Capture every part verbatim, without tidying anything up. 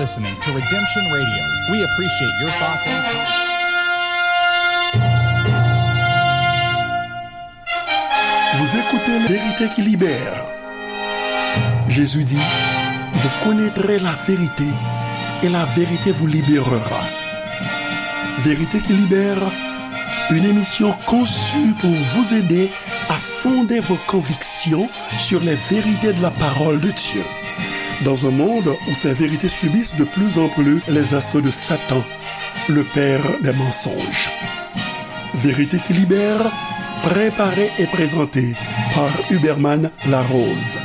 Listening to Redemption Radio. We appreciate your thoughts and comments. Vous écoutez La Vérité qui libère. Jésus dit, vous connaîtrez la vérité et la vérité vous libérera. Vérité qui libère, une émission conçue pour vous aider à fonder vos convictions sur les vérités de la parole de Dieu. Dans un monde où ces vérités subissent de plus en plus les assauts de Satan, le père des mensonges. Vérité qui libère, préparée et présentée par Huberman Larose.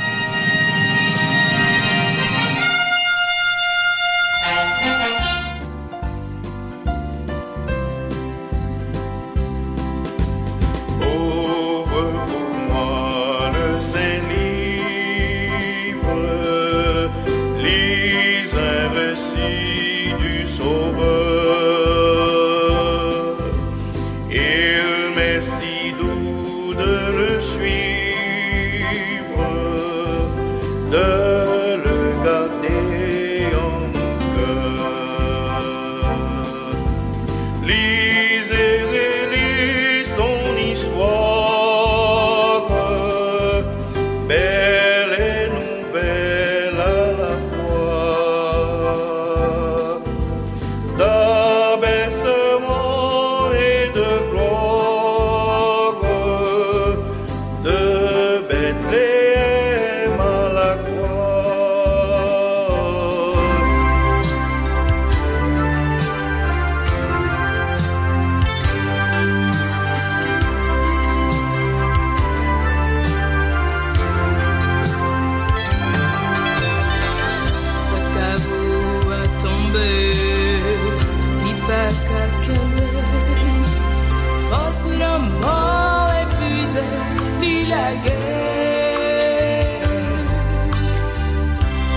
Ouvre pour moi le Saint-Livre, lis un récit du Sauveur. Il m'est si doux de le suivre, de le garder en mon cœur. Lis et relis son histoire, belle et nouvelle à la fois. D'abaissement et de gloire, de Bethléem à la croix. Pòt kavo a tonbe, li pa ka kenbe. Fòs lanmò epuize, li lage.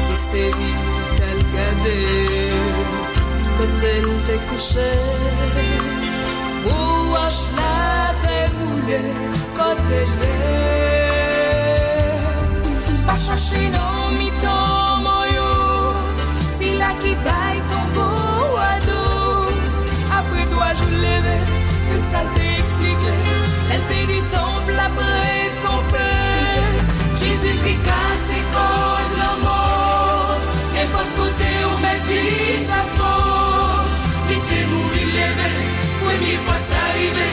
Li sezi, t al gade kote l te kouche. Pou wòch la te woule kote l ye. Pa chache nan mitan mò yo, sila ki bay tonbo a do. Apre twa jou l leve, se sa l te eksplike. Lè l te di tanp la prèt kanpe, Jezi ki kase kòd lanmò. Nenpòt kote ou mèt di sa fò, li te mouri, l leve, premye fwa sa rive,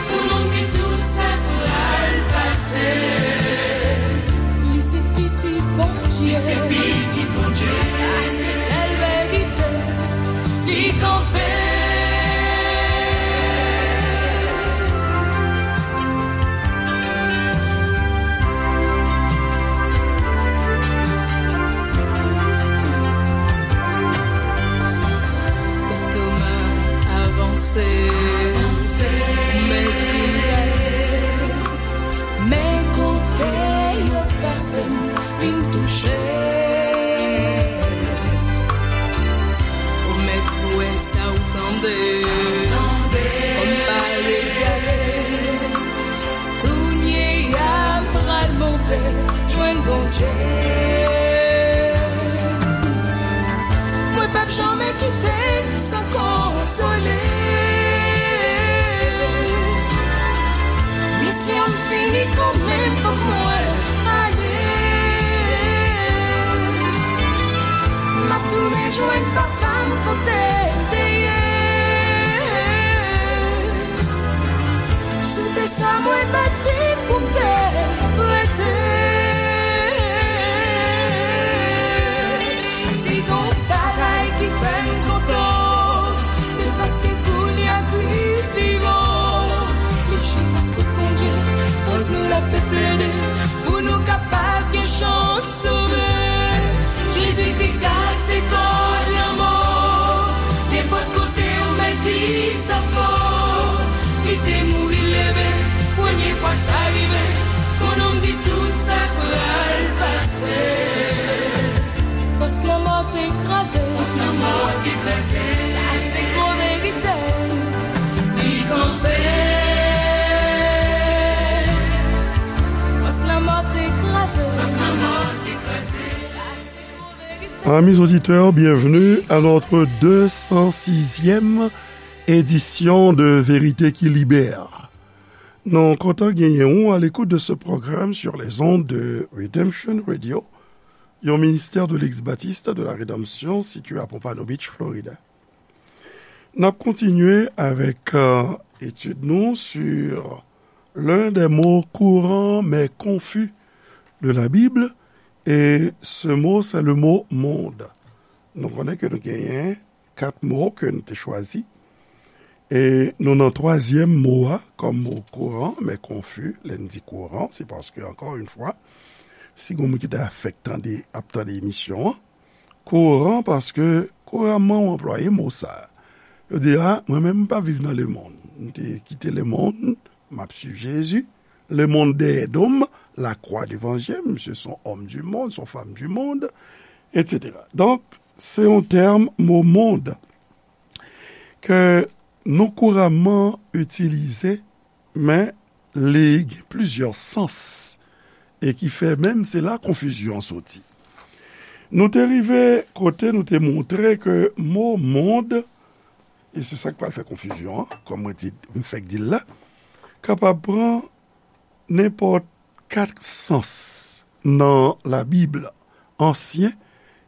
pou nou di tout sa pral pase. Li se pitit Bondye. Li se pitit Bondye. Sa se sèl verite. Li kanpe. Toma avanse, mèt vin gade, men kote yo pase m vin touche. Ou mèt kwè sa ou tande, kòm pa regade. Kounye a m pral monte jwenn Bondye. Mwen p ap janmen kite l san konsole. Misyon m fini kanmenm, fòk mwen ale. M ap tounen jwenn papa m kote l te ye. Si w te sa mwen pa t vin pou m te rete. Si gon bagay ki fè m kontan, se paske kounye a Kris vivan. Li chita kot Bondye, koz nou l ap plede, pou nou kapab gen chans sove. Jezi ki kase kòd lanmò. Nenpòt kote ou mèt di sa fò. Li te mouri, l leve, premye fwa sa rive. Pou nou m di tout sa pral pase. Fòs lanmò te kraze. Fòs lanmò te kraze. Sa se gwo verite. Li kanpe. Fòs lanmò te kraze. Fòs lanmò te kraze. Sa se gwo verite. Amis auditeurs, bienvenue à notre deux cent sixième édition de Vérité qui Libère. Nou kontan genyen ou à l'écoute de ce programme sur les ondes de Redemption Radio, yon ministère de l'ex-baptiste de la Rédemption situé à Pompano Beach, Florida. N ap kontinye avèk, euh, etid nou sur l'un des mots courants mais confus de la Bible, et ce mot, c'est le mot monde. Nou konnen ke nou genyen kat mo ke nou te chwazi. E nou nan twazyèm mo a kòm mo kouran, men konfi. Lè n di kouran, se paske, ankò yon fwa, si gon moun ki ta fèk tande, ap tande emisyon an, kouran, paske kouramman ou anplwaye mo sa a. Yo di, a, mwen menm, m pa viv nan lemonn. M te kite lemonn, m ap swiv Jezi. Lemonn dèyè do m, la croix devant je, misye se yon homme du monde, se yon femme du monde, et cetera. Donk, se yon tèm, mo mond, ke nou kouramman itilize, men li gen plizyè sans, e ki fè menm se la konfizyon an soti. Nou te rive kote nou te montre ke mo mond, e se sa k pral fè konfizyon an, kòm mwen di, m fèk di l la, kapab pran nenpòt kat sans nan Labib, Ansyen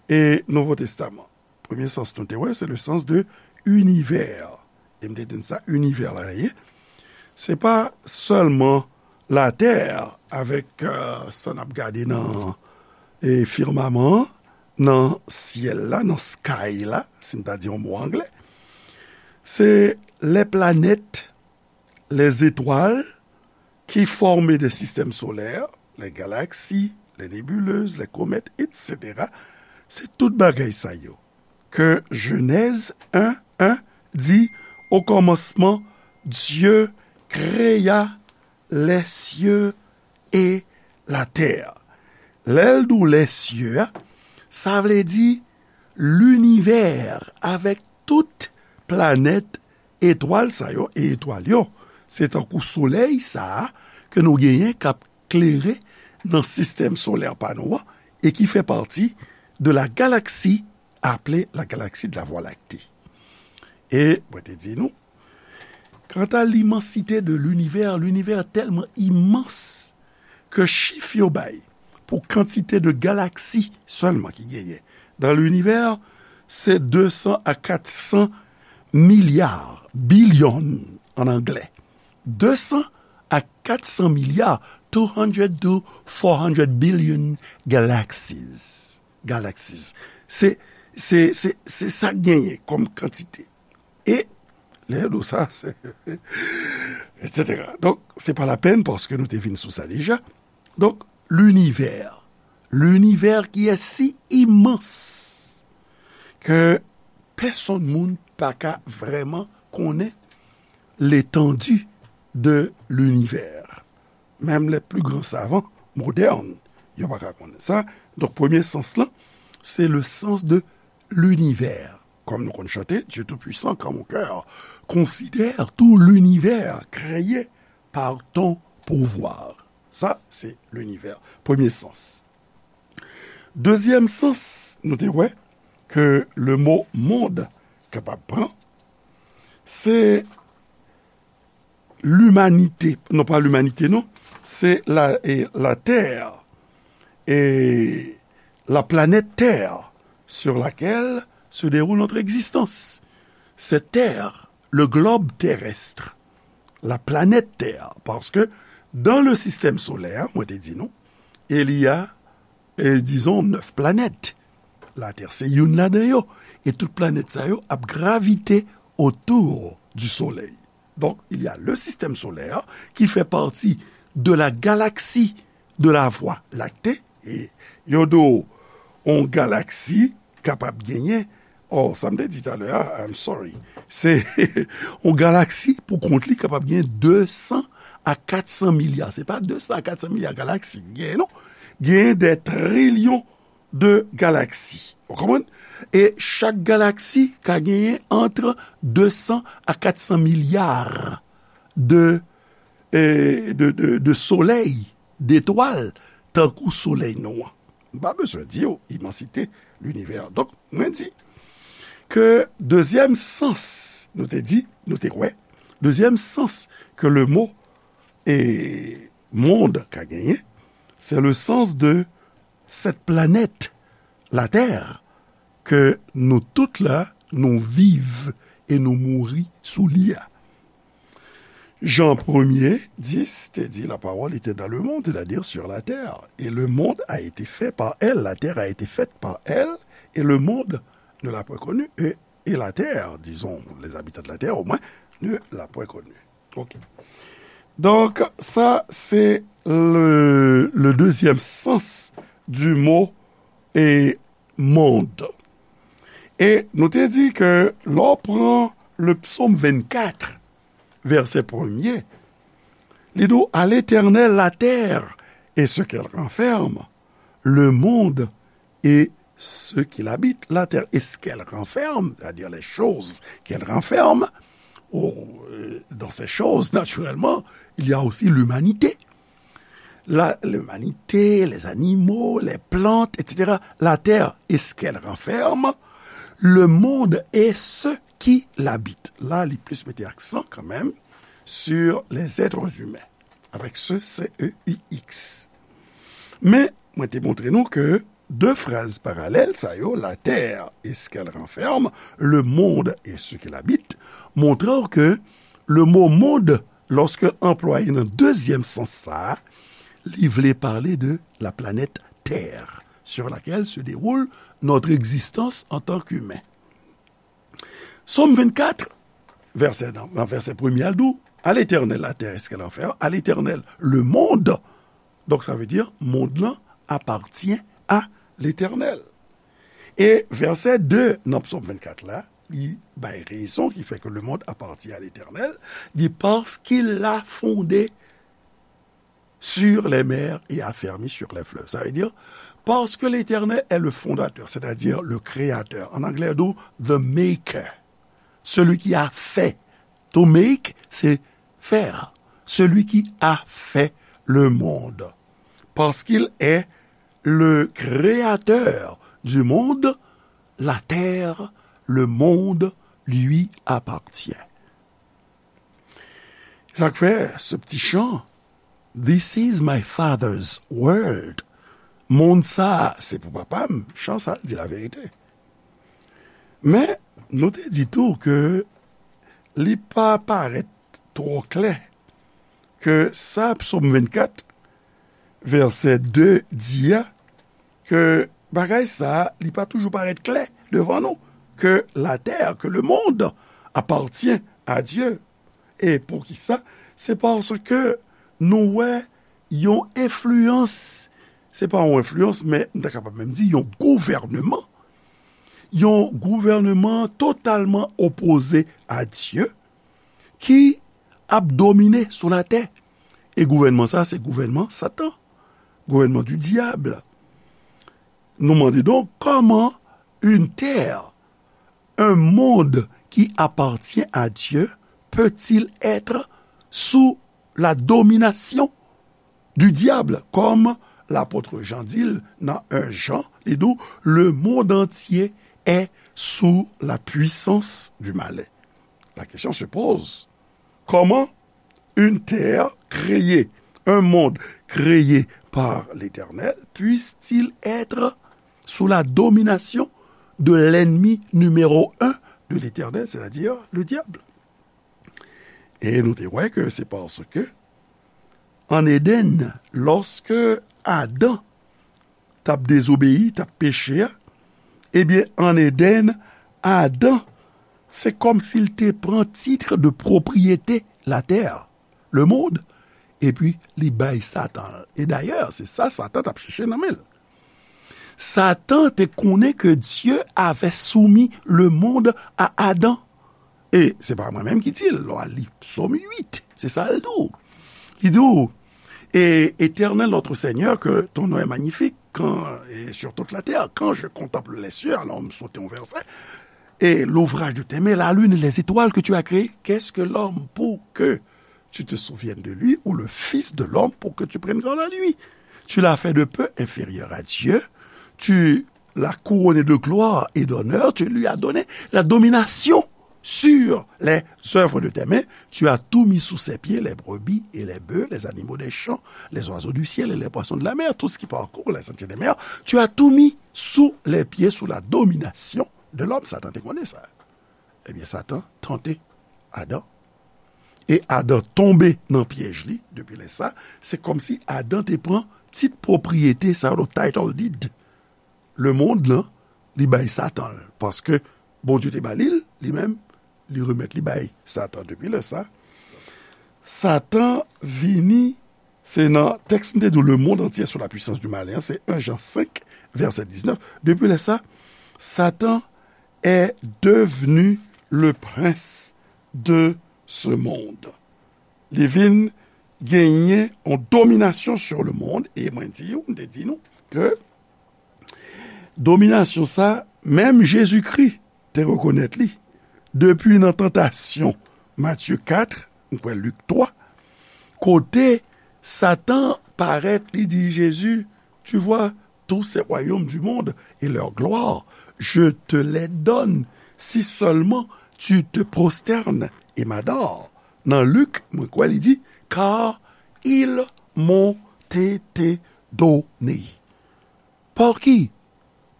e Nouvo Testaman. Premye sans nou te wè, se le sens de univers. E m te di n sa, inivè la ye. Se pa sèlman latè avèk, euh, sa n ap gade nan, e, fimaman an, nan syèl la, nan sky la, si n ta di yon mo anglè. Se les planètes, les étoiles qui forment des systèmes solaires, les galaxies, les nébuleuses, les comètes, et cetera. Se tout bagay sa yo ke Jenèz en en di, au commencement, Dieu créa les cieux et la terre. Lè l di w les cieux a, sa vle di linivè avèk tout planèt, etwal sa yo, e etwal yo, se tankou solèy sa a ke nou genyen k ap klere nan sistèm solè pa nou an e ki fè pati de la galaksi aple la galaksi de la Voie lactée. E mwen te di nou, kanta limansite de linivè, linivè tèlman imans ke chif yo bay pou kantite de galaksi sèlman ki genyen dan linivè, se de san a kat san milya, billion an anglè. De san a kat san milya, two hundred to four hundred billion galaxies. Galaxies. Se, se, se, se sa k genyen kòm kantite. E lè yo di w sa, se, et cetera. Donk, se pa lapèn paske nou te vin sou sa deja. Donk, linivè. Linivè ki est si immense ke pèsonn moun pa ka vrèman konnen l'étendue de l'univers. Menm les plus grands savants modernes, yo pa ka konnen sa. Donk, premye sans lan, se le sens de l'univers. Kòm nou konn chante, Dieu tout-puissant, quand mon cœur considère tout l'univers créé par ton pouvoir. Sa, se linivè. Premye sans. Dezyèm sans, nou te wè ke le mo mond kapab pran, se limanite, non pa limanite, non, se la, e, la tè, e la planèt tè sur laquelle se déroule notre existence. Cette terre, le globe terrestre, la planète Terre, parce que dans le système solaire, mwen te di nou, il y a, e, disons, neuf planètes. Latè se youn ladan yo, e tout planèt sa yo ap gravite autour du soleil. Donc, il y a le système solaire qui fait partie de la galaxie de la Voie lactée. E yo di w, yon galaksi kapab genyen, oh, sa m te di talè a, I'm sorry. Se yon galaksi pou kont li kapab genyen de san a kat san milya. Se pa de san a kat san milya galaksi k genyen, non. Genyen des trillions de galaxies. Ou konprann? E chak galaksi ka genyen entre de san a kat san milya de, e, de, de, de solèy, detwal, tankou solèy nou an. M pa bezwen di w imansite l'univers. Donk, mwen di ke dezyèm sans, nou te di, nou te kwè, dezyèm sans ke le mo e monde ka genyen, se le sens de cette planète, la Terre, ke nou tout la, nou viv e nou mouri sou li a. Jean premier, dix te di, la parole était dans le monde, c'est-à-dire sur la terre. Et le monde a été fait par elle, la terre a été faite par elle, et le monde ne l'a point connue, et, et la terre, disons, les habitants de la terre au moins, ne l'a point connue. Ok. Donk, sa se le, le deuxième sens du mot e monde. E nou te di ke lè w pran le psaume vingt-quatre, verset premier, li di w, à l'Éternel la terre et ce qu'elle renferme, le monde et ce qu'il habite, la terre et ce qu'elle renferme, c'est-à-dire les choses qu'elle renferme. Oh, euh, dans ces choses, naturellement, il y a aussi l'humanité. La, l'humanité, les animaux, les plantes, et cetera. La terre et ce qu'elle renferme, le monde et ceux qui l'habitent. La, li plis mete aksan kanmenm sur les êtres humains, avec ce C E U X. Men, mwen te montre nou ke de fraz paralèl sa yo, la terre et ce qu'elle renferme, le monde et ceux qui l'habitent, montre w ke le mot monde, lòske anplwaye nan dezyèm sans sa a, li vle pale de la planète Terre, sur laquelle se déroule notre existence en tant qu'humain. Sòm vennkat, vèsè, nan, nan vèsè premye a, l di w, à l'Éternel la terre et ce qu'elle renferme, à l'Éternel le monde. Donk, sa vle di, mond lan apatyen a Letènèl. E vèsè de nan Psòm vennkat la, li bay rezon ki fè ke le monde appartient à l'Éternel. Li di, parce qu'il l'a fondé sur les mers et affermi sur les fleuves. Ça veut dire, parce que l'Éternel est le fondateur, c'est-à-dire le créateur. En anglais, on dit the maker, celui qui a fait. To make, c'est faire. Celui qui a fait le monde. Parce qu'il est le créateur du monde, la terre, le monde lui appartient. Sa k fè, ce petit chant, This is my father's world. Mond sa, se pou papa m. Chan sa, di laverite. Men, nou te di tou ke li pa parèt twò klè ke sa Psòm vennkat, vèsè de di a, ke bagay sa a, li pa toujou parèt klè devan nou, ke la terre, que le monde appartient à Dieu. E poukisa? Se paske nou wè yon enfliyans, se pa yon enfliyans, men m ta kapab menm di yon gouvènman, yon gouvènman totalman opoze a Dye ki ap domine sou latè. E gouvènman sa, se gouvènman Satan, gouvènman du diable. Nou mande donk, comment une terre, un monde qui appartient à Dieu peut-il être sous la domination du diable, comme l'apôtre Jean di l nan un Jean, li di w, le monde entier est sous la puissance du malin. La question se pose, comment une terre créée, un monde créé par l'Éternel, puisse-t-il être sous la domination de l'ennemi numéro un de l'Éternel, c'est-à-dire le diable? E nou te wè ke se paske, an Eden, lòske Adan t ap dezobeyi, t ap peche a, ebyen, an Eden, Adan, se kòmsi l te pran tit de pwopriyete latè, le monde, epi li bay Satan. E dayè, se sa Satan t ap chèche nan men l. Satan te konnen ke Dieu avait soumis le monde à Adam. E se pa mwen menm ki di l, lè w al li Psaume huit, se sa l di w. Li di w, et Éternel notre Seigneur, que ton nom est magnifique quand, et sur toute la terre. Quand je contemple les cieux, alors m sote yon vèsè, et l'ouvrage de tes mains, la lune et les étoiles que tu as créées, qu'est-ce que l'homme pour que tu te souviennes de lui, ou le fils de l'homme pour que tu prennes garde à lui? Tu l'as fait de peu inférieur à Dieu, tu l'a couronné de gloire et d'honneur, tu lui as donné la domination sur les œuvres de tes mains, tu as tout mis sous ses pieds, les brebis et les bœufs, les animaux des champs, les oiseaux du ciel et les poissons de la mer, tout ce qui parcourt les sentiers des mers, tu as tout mis sous les pieds, sous la domination de l'homme. Satan te konnen sa. Ebyen, Satan tante Adan. E Adan tonbe nan pyèj li. Depi lè sa, se kòmsi Adan te pran tit pwopriyete sa yo, title deed. Lemonn lan, li bay Satan l. Paske Bondye te ba li l, li menm, li remèt li bay Satan. Depi lè sa, Satan vini, se nan tèks m te di w, le monde entier sous la puissance du malin, se en Jan senk, vèsè diznèf. Depi lè sa, Satan est devenu le prince de ce monde. Li vin genyen yon dominasyon sur le monde, e mwen di w, m te di nou, ke dominasyon sa, menm Jezikri te rekonèt li. Depi nan tantasyon, Matye kat, m kwè Lik twa, kote Satan parèt, li di Jezi, tu vois, tous ces royaumes du monde et leur gloire, je te les donne, si seulement tu te prosternes et m'adores. Nan Lik, mwen kwè li di, car ils m'ont été donnés. Par qui?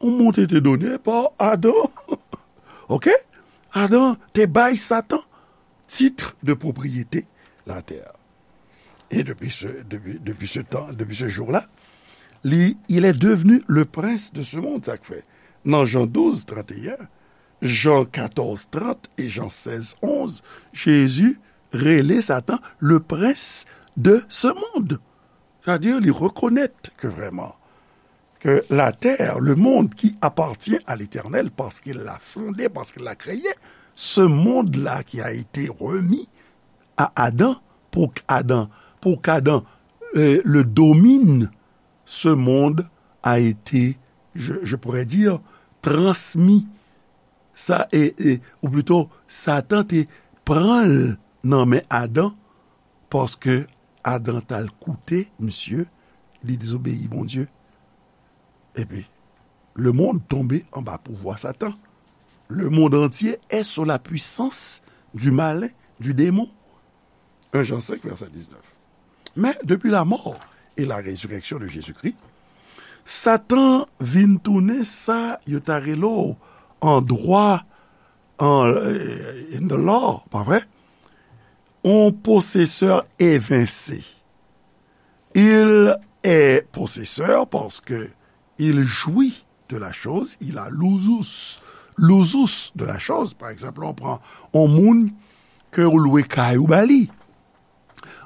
Ils m'ont été donnés par Adam. Ok? Adan te bay Satan titre de propriété la terre. Et depuis ce, depuis, depuis ce temps, depuis ce jour-là, li, il est devenu le prince de ce monde. Sa k fè, nan Jan douz, trant e en, Jan katòz, trant e Jan sèz, onz, Jezi rele Satan le prince de ce monde. Sa di, li rekonèt ke vrèman, ke la terre, le monde qui appartient à l'Éternel, parce qu'il l'a fondé, parce qu'il l'a créé, ce monde-là qui a été remis à Adam, pour qu'Adam, pour qu'Adam, euh, le domine, ce monde a été, je, je pourrais dire, transmis. Sa, e, e, ou plito, Satan te pran l nan men Adan, paske Adan t al koute misye, li dezobeyi Bondye. Epi, le monde tombe anba pouvwa Satan. Le monde entier est sous la puissance du malin, du démon. En Jan senk, vèsè diznèf. Men, depi la mort et la résurrection de Jésus-Christ, Satan vin tounen sa yo ta rele w an dwa, an, euh, in the law, pa vre? On possesseur évincé. Il est possesseur parce que il jouit de la chose, il a l'usufruit, l'usufruit de la chose. Pa egzanp, lè w pran yon moun ke w lwe kay ou ba li.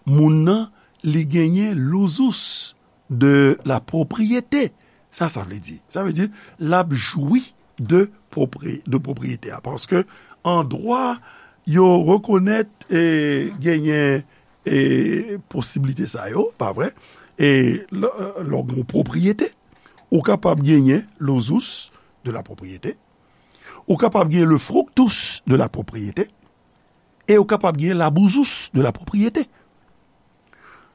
Moun nan, li genyen l'usufruit de la propriété. Sa, sa vle di. Sa vle di, l ap jwi de pwopri-, de pwopriyete a. Paske an dwa, yo rekonèt, e, genyen, e, posiblite sa yo, pa vre? E lè, lè w gen yon pwopriyete, ou kapab genyen l'usufruit de la propriété, ou kapab genyen le fructus de la propriété, e ou kapab genyen l'abusufruit de la propriété.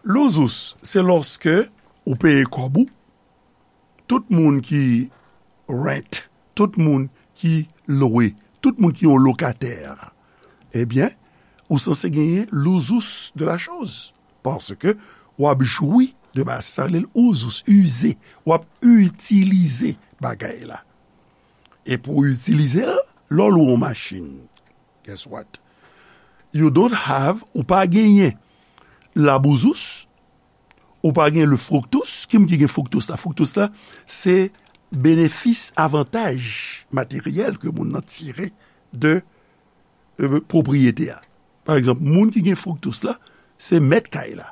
L'usufruit, se lòske ou peye kòb ou, tout moun ki rent, tout moun ki lwe, tout moun ki yon lokatè, ebyen, ou sanse genyen l'usufruit de la chose. Paske w ap jwi de bagay, sa rele l usufruit, ize. W ap itilize bagay la. E pou w itilize l, lè w lwe yon machin, guess what? You don't have, ou pa genyen l'abusufruit, ou pa gen le fructus. Ki moun ki gen fructus la? Fructus la, se benefis, avantaj materyèl ke moun nan tire de, euh, pwopriyete a. Pa egzanp, moun ki gen fructus la, se mèt kay la.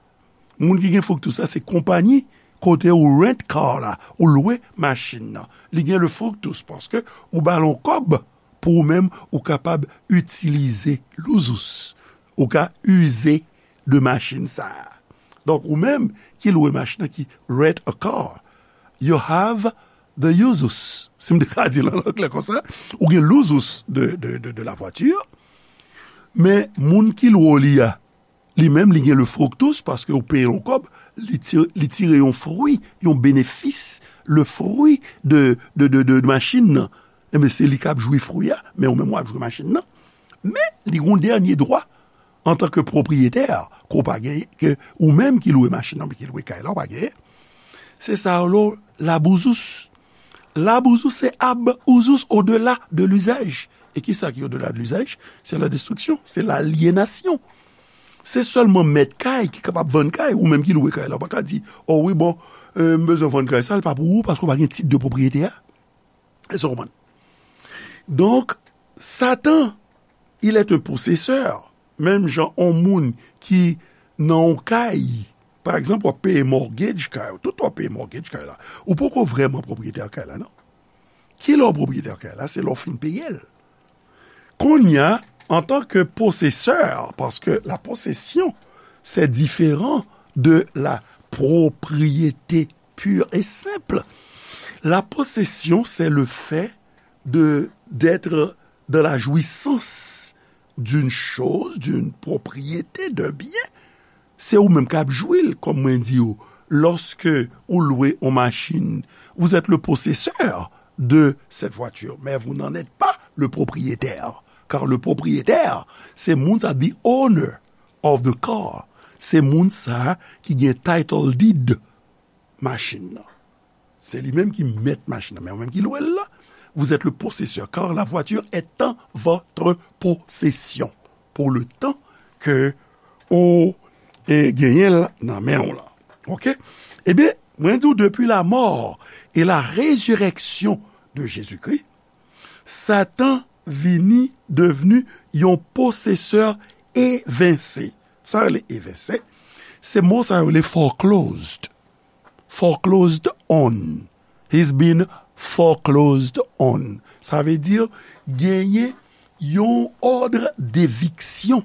Moun ki gen fructus la, se konpayi kote ou rent car la, ou lwe machin nan. Li gen le fructus paske ou ba l yon kòb pou ou menm ou kapab itilize l'usufruit. Ou ka ize de machin sa a. Donk, ou menm ki lwe machin nan, ki rent a car, you have the usufruit. Si m te ka di l an anglè konsa, ou gen l'usufruit de, de, de, de la voiture, men moun ki lwe w li a, Li menm, li gen le fructus, paske ou peye l yon kòb, li ti-, li tire yon fwi, yon benefis, le fwi de, de, de, de, de machin nan. Enben, se li k ap jwi fwi a, men ou menm w ap jwi machin nan. Men, li gen yon dènye dwa, antanke pwopriyetè, ke w pa genyen, ke ou menm ki lwe machin nan, ki lwe kay la, w pa genyen. Se sa yo rele l'abusus. L'abusus, c'est ab usus, au-delà de l'usage. E ki sa ki au-delà de l'usage? C'est la destruction, c'est l'aliénation. Se sèlman mèt kay ki kapab vann kay, ou menm ki lwe kay la, ou pa ka di, o wi, bon, euh, m bezwen vann kay sa, l pa pou ou, paske w pa gen tit de pwopriyete a. Èske w konprann? Donk, Satan, il est un possesseur. Menm jan yon moun ki nan yon kay, pa egzanp, w ap peye mortgage kay ou, tout w ap peye mortgage kay la. Ou poko vrèman pwopriyetè kay la, non. Kilè w pwopriyetè kay la? Se lè w fin peye l. Kounye a, antanke posesè, paske la possession, c'est différent de la propriété pure et simple. La possession, c'est le fait de, d'être dans la jouissance d'une chose, d'une propriété, d'un bien. Se ou menm k ap jwi l, kòm mwen di w, lòske ou lwe yon machin, vous êtes le possesseur de cette voiture, mais vous n'en êtes pas le propriétaire. Car le propriétaire, se moun sa, the owner of the car. Se moun sa ki gen title deed machin nan. Se li menm ki mèt machin nan, men ou menm ki lwe l la, vous êtes le possesseur, car la voiture est en votre possession. Pour le temps que ou, e, genyen l nan men w la. Oke? Ebyen, mwen di w, depuis la mort et la résurrection de Jésus-Christ, Satan vini devni yon posesè evense. Sa rele evense, se mo sa yo rele foreclosed. Foreclosed on. He's been foreclosed on. Sa vle di genyen yon ordre d'éviction.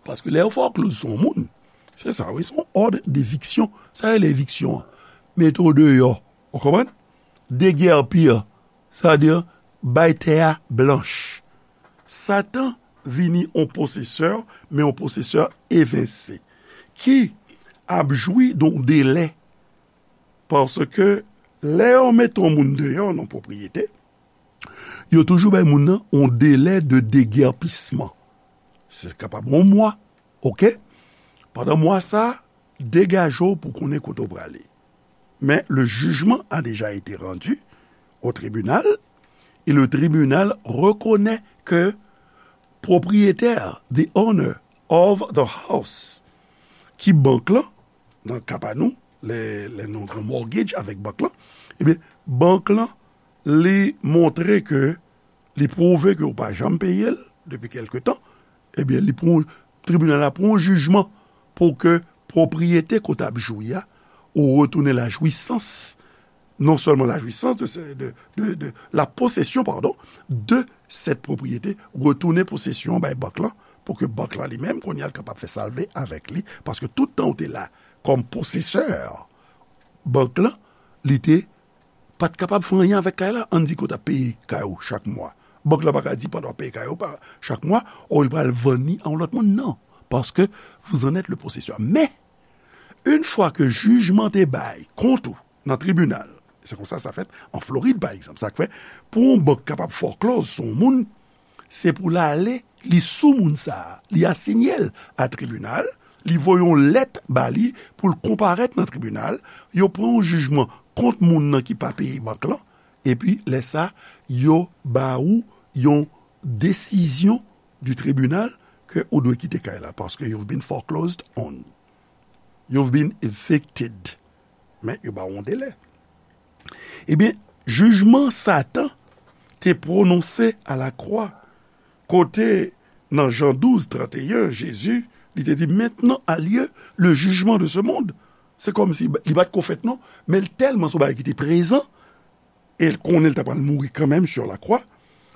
Paske lè yo foreclose sou yon moun, se sa, wi, se yon ordre d'éviction. Sa rele eviksyon an? Mete w deyò. Ou konprann? Degèpi, sa vle di bay tè a blanch. Satan vini yon posesè, men yon posesè evense, ki ap jwi de yon delè. Paske lè yo mete yon moun deyò nan pwopriyete, yo toujou bay moun nan yon delè de degèpisman. Se kapab yon mwa, oke? Pandan mwa sa, degaje w pou konnen kote w prale. Mais le jugement a déjà été rendu au tribunal, et le tribunal reconnaît que propriétaire, the owner of the house, ki bank lan, nan ka pa nou, lè, lè nou gen mortgage avèk bank lan, ebyen, bank lan, li montre ke li pwouve ke ou pa janm peye l depi kèlke tan, ebyen, li pran, tribinal la pran yon jijman pou ke pwopriyete ke w t ap jwi a, ou retounen la jouissance, non seulement la jouissance de, ce- de, de, de la possession, pardon, de cette propriété, retounen posesyon an bay bank lan, pou ke bank lan li menm, kounye a, l kapab fè sa l vle avèk li, paske tout tan ou te la kòm posesè, bank lan, li te pa t kapab fè anyen avèk kay la. Ann di ke w t ap peye kay ou chak mwa. Bank la pa ka di pandan w ap peye kay ou pa, chak mwa, o, li pral vann li a yon lòt moun, non. Paske vous en êtes le possesseur. Men, yon fwa ke jijman te bay kont ou nan tribinal, se konsa sa fèt an Florid, pa egzanp. Sa k fè, pou yon bank kapab foreclose sou yon moun, se pou l ale, li sou moun sa a, li asiyen l a tribinal, li voye yon lèt ba li pou l konparèt nan tribinal, yo pran yon jijman kont moun nan ki pa peye bank lan, epi lè sa, yo ba ou yon desizyon du tribunal ke ou dwe kite kay la, paske you've been foreclosed on. You've been evicted. Men yo ba w yon delè. Ebyen, jijman Satan te pwononse a la croix, kote nan Jan douz, trannteyen, Jezi, li te di, maintenant a lieu le jugement de ce monde. Se kòmsi li pa t ko fèt non, men l tèlman se yon bagay ki te prezan, e l konnen l ta pral mouri kanmenm sur la croix,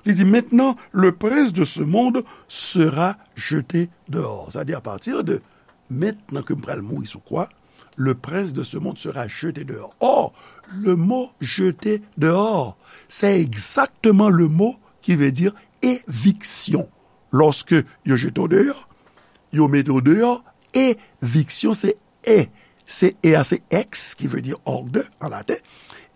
li di, maintenant, le prince de ce monde sera jeté dehors. Sa di, à partir de maintenant ke m pral mouri sou kwa, le prince de ce monde sera jeté dehors. Or, le mot jeté dehors, c'est exactement le mot qui veut dire éviction. Lòske yo jete w deyò, yo mete w deyò, eviksyon, se e, se e a, se ex, ki vle di hors de an laten,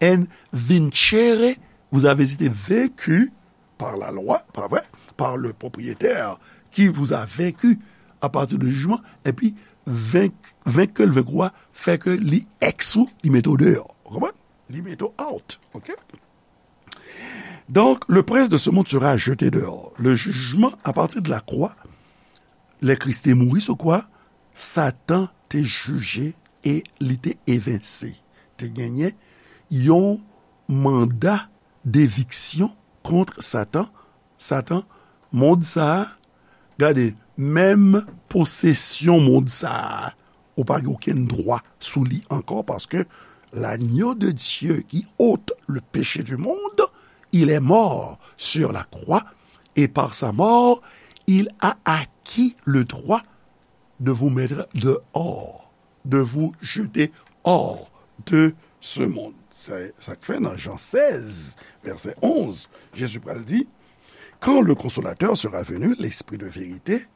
and vincere, vous avez été vaincu par la loi, pa vre, par le propriétaire qui vous a vaincu à partir de jugement, epi venk, venk ke l venk ou a, fè ke li ex ou, li mete w deyò. Ou konprann? Li mete w out, ok? Donc, le prince de ce monde sera jeté dehors. Le jugement à partir de la croix, lè Kris te mouri sou kwa, Satan te jije e li te evense. Te genyen yon manda deviksyon kont Satan. Satan, mond sa a, gade, menm posesyon mond sa a, ou pa gen okenn dwa sou li ankò, paske l'agneau de Dieu qui ôte le péché du monde, il est mort sur la croix, et par sa mort, il a acquis le droit de vous mettre dehors, de vous jeter hors de ce monde. Sa, sa k fè nan Jan sèz, vèsè onz, Jezi pral di, quand le consolateur sera venu, l'esprit de vérité,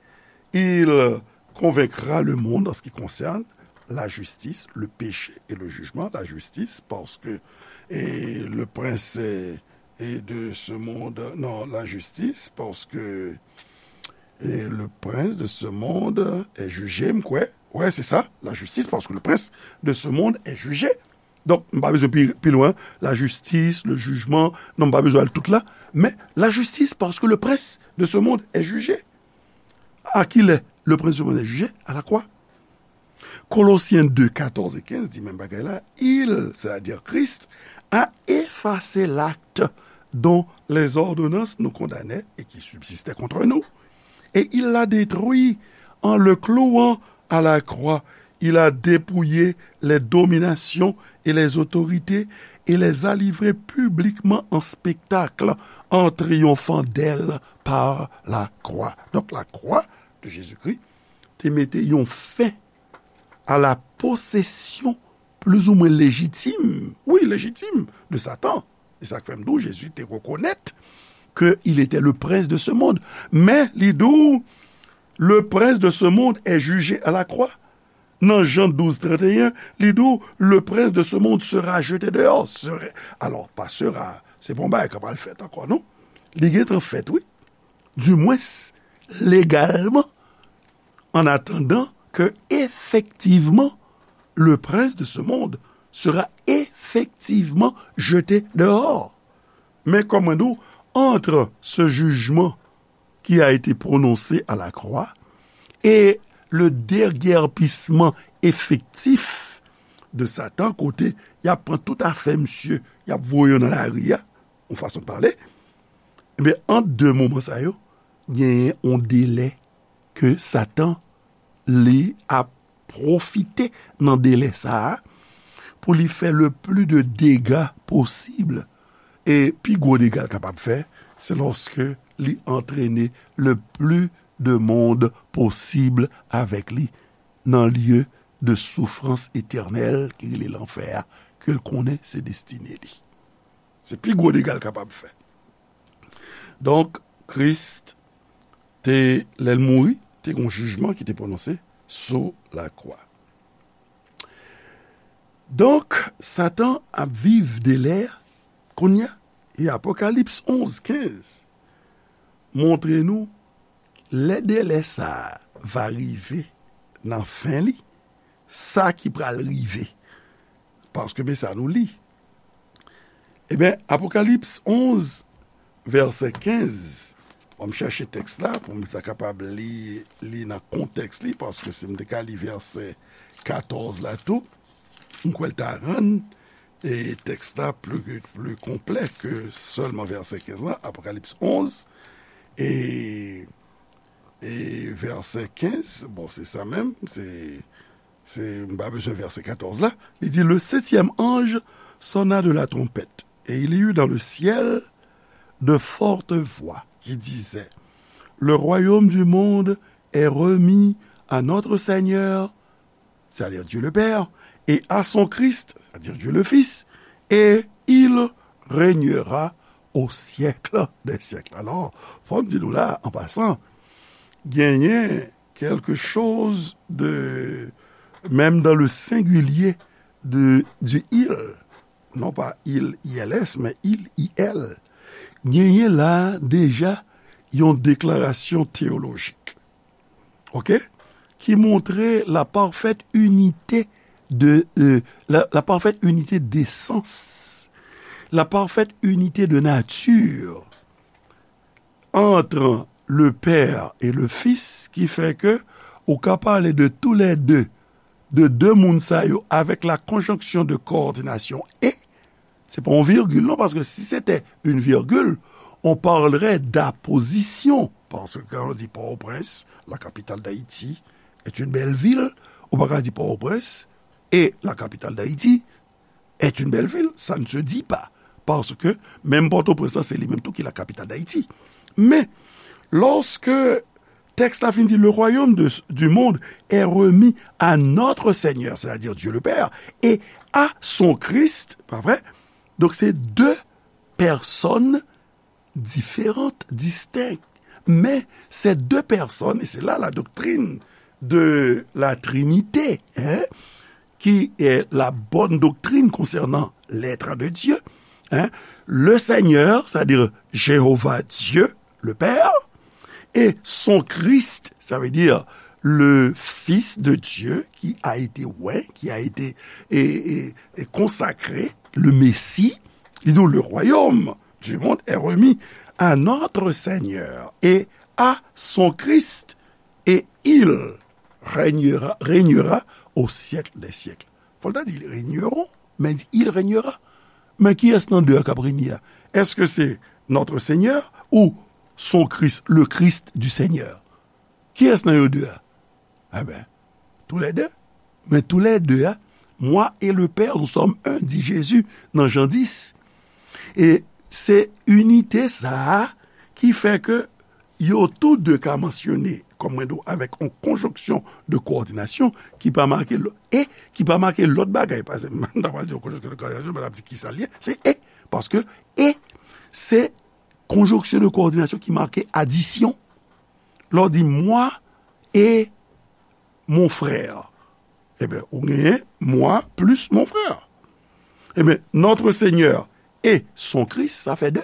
il convaincra le monde en ce qui concerne la justice, le péché et le jugement. La justice, parce que et le prince est, est de ce monde, non, la justice, parce que et le prince de ce monde est jugé, m kwè. Ouais, c'est ça, la justice, parce que le prince de ce monde est jugé. Donk, m pa bezwen pi, pi lwen, la justice, le jugement, non, m pa bezwen al tout la, men la justice, parce que le prince de ce monde est jugé. À qui le, le prince de ce monde est jugé? À la croix. Kolosyen de, katòz e kenz di menm bagay la, il, c'est-à-dire Christ, a effacé l'acte dont les ordonnances nous condamnaient et qui subsistait contre nous. Et il l'a détruit en le clouant à la croix. Il a dépouillé les dominations et les autorités et les a livrées publiquement en spectacle en triomphant d'elles par la croix. Donc la croix de Jésus-Christ te mete yon fen a la posesyon plizoumwen lejitim, wi, lejitim, de Satan. E sa k fè m di w, Jezi te rekonèt ke il était le prince de ce monde. Men, li di w, le prince de ce monde est jugé à la croix. Nan Jan douz, trannteyen, li di w, le prince de ce monde sera jeté dehors. Sera, alò, pa sera, se pa yon bagay k ap al fèt ankò, non. Li gentan fèt, wi. Dimwens, legalman, en attendant que, effectivement, le prince de ce monde sera effectivement jeté dehors. Men kòman nou, entre ce jugement qui a été prononcé à la croix et le déguerpissement effectif de Satan, kote y ap pran tout afè misye, y ap voye yo nan lari a, yon fason de pale, ebyen, ant de moman sa yo, genyen yon delè ke Satan, li ap pwofite nan delè sa a pou li fè le pli de dega posib. E pi gwo dega l kapab fè, se lòske li antrene le pli de mond posib avèk li nan lye de soufrans etènèl ki rele lanfè a, ke l konnen se destine li. Se pi gwo dega l kapab fè. Donk, Kris te, lè l mouri, te gen yon jijman ki te pwononse sou lakwa. Donk, Satan ap viv delè kounye a. E Apokalips onz kenz montre nou, lè delè sa a va rive nan fen li, sa ki pral rive. Paske men sa nou li. Ebyen, Apokalips onz, vèsè kenz, bon, m chèche tèks la pou m ta kapab li, li nan kontèks li, paske si m te ka li vèsè katòz la tou, m kwè l ta rann, e, tèks la pli, pli konplè ke sèlman vèsè kenz la, Apokalips onz, e, e vèsè kenz, bon, se sa menm, se, se, m pa bezwen vèsè katòz la, li di, le septième ange sonna de la trompette, et il y eut dans le ciel de fortes voix qui disaient, le royaume du monde est remis à notre Seigneur, c'est-à-dire Dieu le Père, et à son Christ, c'est-à-dire Dieu le Fils, et il régnera au siècle des siècles. Alò, fò m di nou la, an pasan, genyen quelque chose de, même dans le singulier de, du il, non pas il, I L S, mais il, I L, genyen la deja yon deklarasyon teyolojik, ok, ki montre la parfaite unité de, euh, la, la parfaite unité d'essence, la parfaite unité de nature entre le Père et le Fils, ki fè ke ou ka pale de tous les deux, de de moun sa yo avec la conjonction de coordination et, se pa yon virgule non, paske si c'était une virgule, on parlerait d'apposition. Parce que quand on dit Port-au-Prince, la capitale d'Haïti, est une belle ville, ou pa ka di Port-au-Prince et la capitale d'Haïti est une belle ville. Ça ne se dit pas. Parce que même Port-au-Prince, c'est lui-même tout qui est la capitale d'Haïti. Mais lorsque texte la fin dit, le royaume de, du monde est remis à notre Seigneur, c'est-à-dire Dieu le Père, et à son Christ, pas vrai? Donc c'est deux personnes différentes, distinctes. Mais ces deux personnes, et c'est là la doctrine de la Trinité, hein, qui est la bonne doctrine concernant l'être de Dieu, hein, le Seigneur, c'est-à-dire Jéhovah Dieu, le Père, et son Christ, ça veut dire le Fils de Dieu qui a été oint, qui a été et, et, et consacré, le Messie, li di w, le royaume du monde est remis à notre Seigneur et à son Christ, et il régnera, régnera au siècle des siècles. Fò l ta di, ils régneront, men di, il régnera. Men kiyès nan de a k ap renye a? Èske se notre Seigneur ou son Christ, le Christ du Seigneur? Kiyès nan yo de a? Eben, tous les deux. Men tous les deux a, moi et le Père, nous sommes un, di Jezi nan Jan dis. E se inite sa a ki fè ke yo tou de ka mansyone, kòm mwen di w, avèk yon konjonksyon de kowòdinasyon ki pa make lò-, e ki pa make lòt bagay. Paske m ta pral di yon konjonksyon de kowòdinasyon, men l ap di kisa l ye, se e. Paske e, se konjonksyon de kowòdinasyon ki make adisyon. Lè w di moi et mon frère, eben, ou genyen moi plus mon frère. Eben, notre Seigneur et son Christ, sa fè de.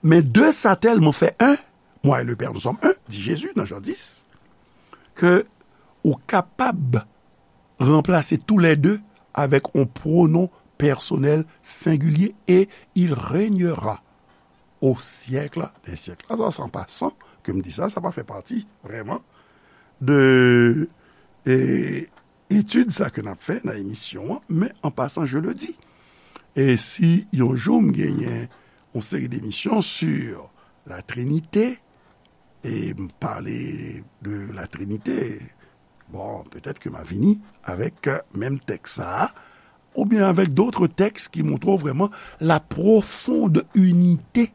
Men de sa tèlman fè un, moi et le Père nous sommes un, di Jezi nan Jan dis, ke ou kapab ranplase tous les deux avèk yon pwonon pèsonèl sengilye, et il régnera au siècle des siècles. Sa, se an pasan ke m di sa, sa pa fè pati vrèman de, e, etid sa ke n ap fè nan emisyon an, men an pasan, je le dis. E si yon jou m genyen yon seri demisyon sur la Trinité, e m pale de la Trinité, bon, petèt ke m a vini avèk, euh, menm tèks sa a, oubyen avèk d'autres textes ki montre w vrèman la profonde unité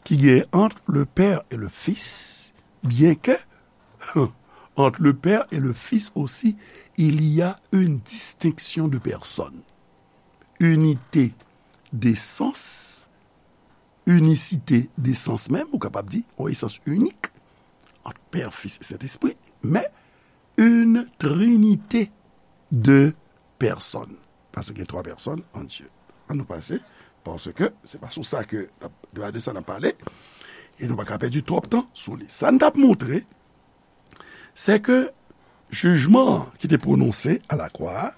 ki gen entre le Père et le Fils, bien que entre le Père et le Fils aussi, il y a une distinction de personnes. Unité d'essence, inisite d'esans menm, ou kapab di, yon esans inik, ant Pè, Fis e Sentespri, men une trinité de personnes. Paske gen twa pèsòn an Dye. Ann nou pase, paske se pa sou sa ke, de, de sa n ap pale, e nou pa ka pèdi twòp tan sou li. Sa n t ap montre, se ke jijman an ki te pwononse alakwa a,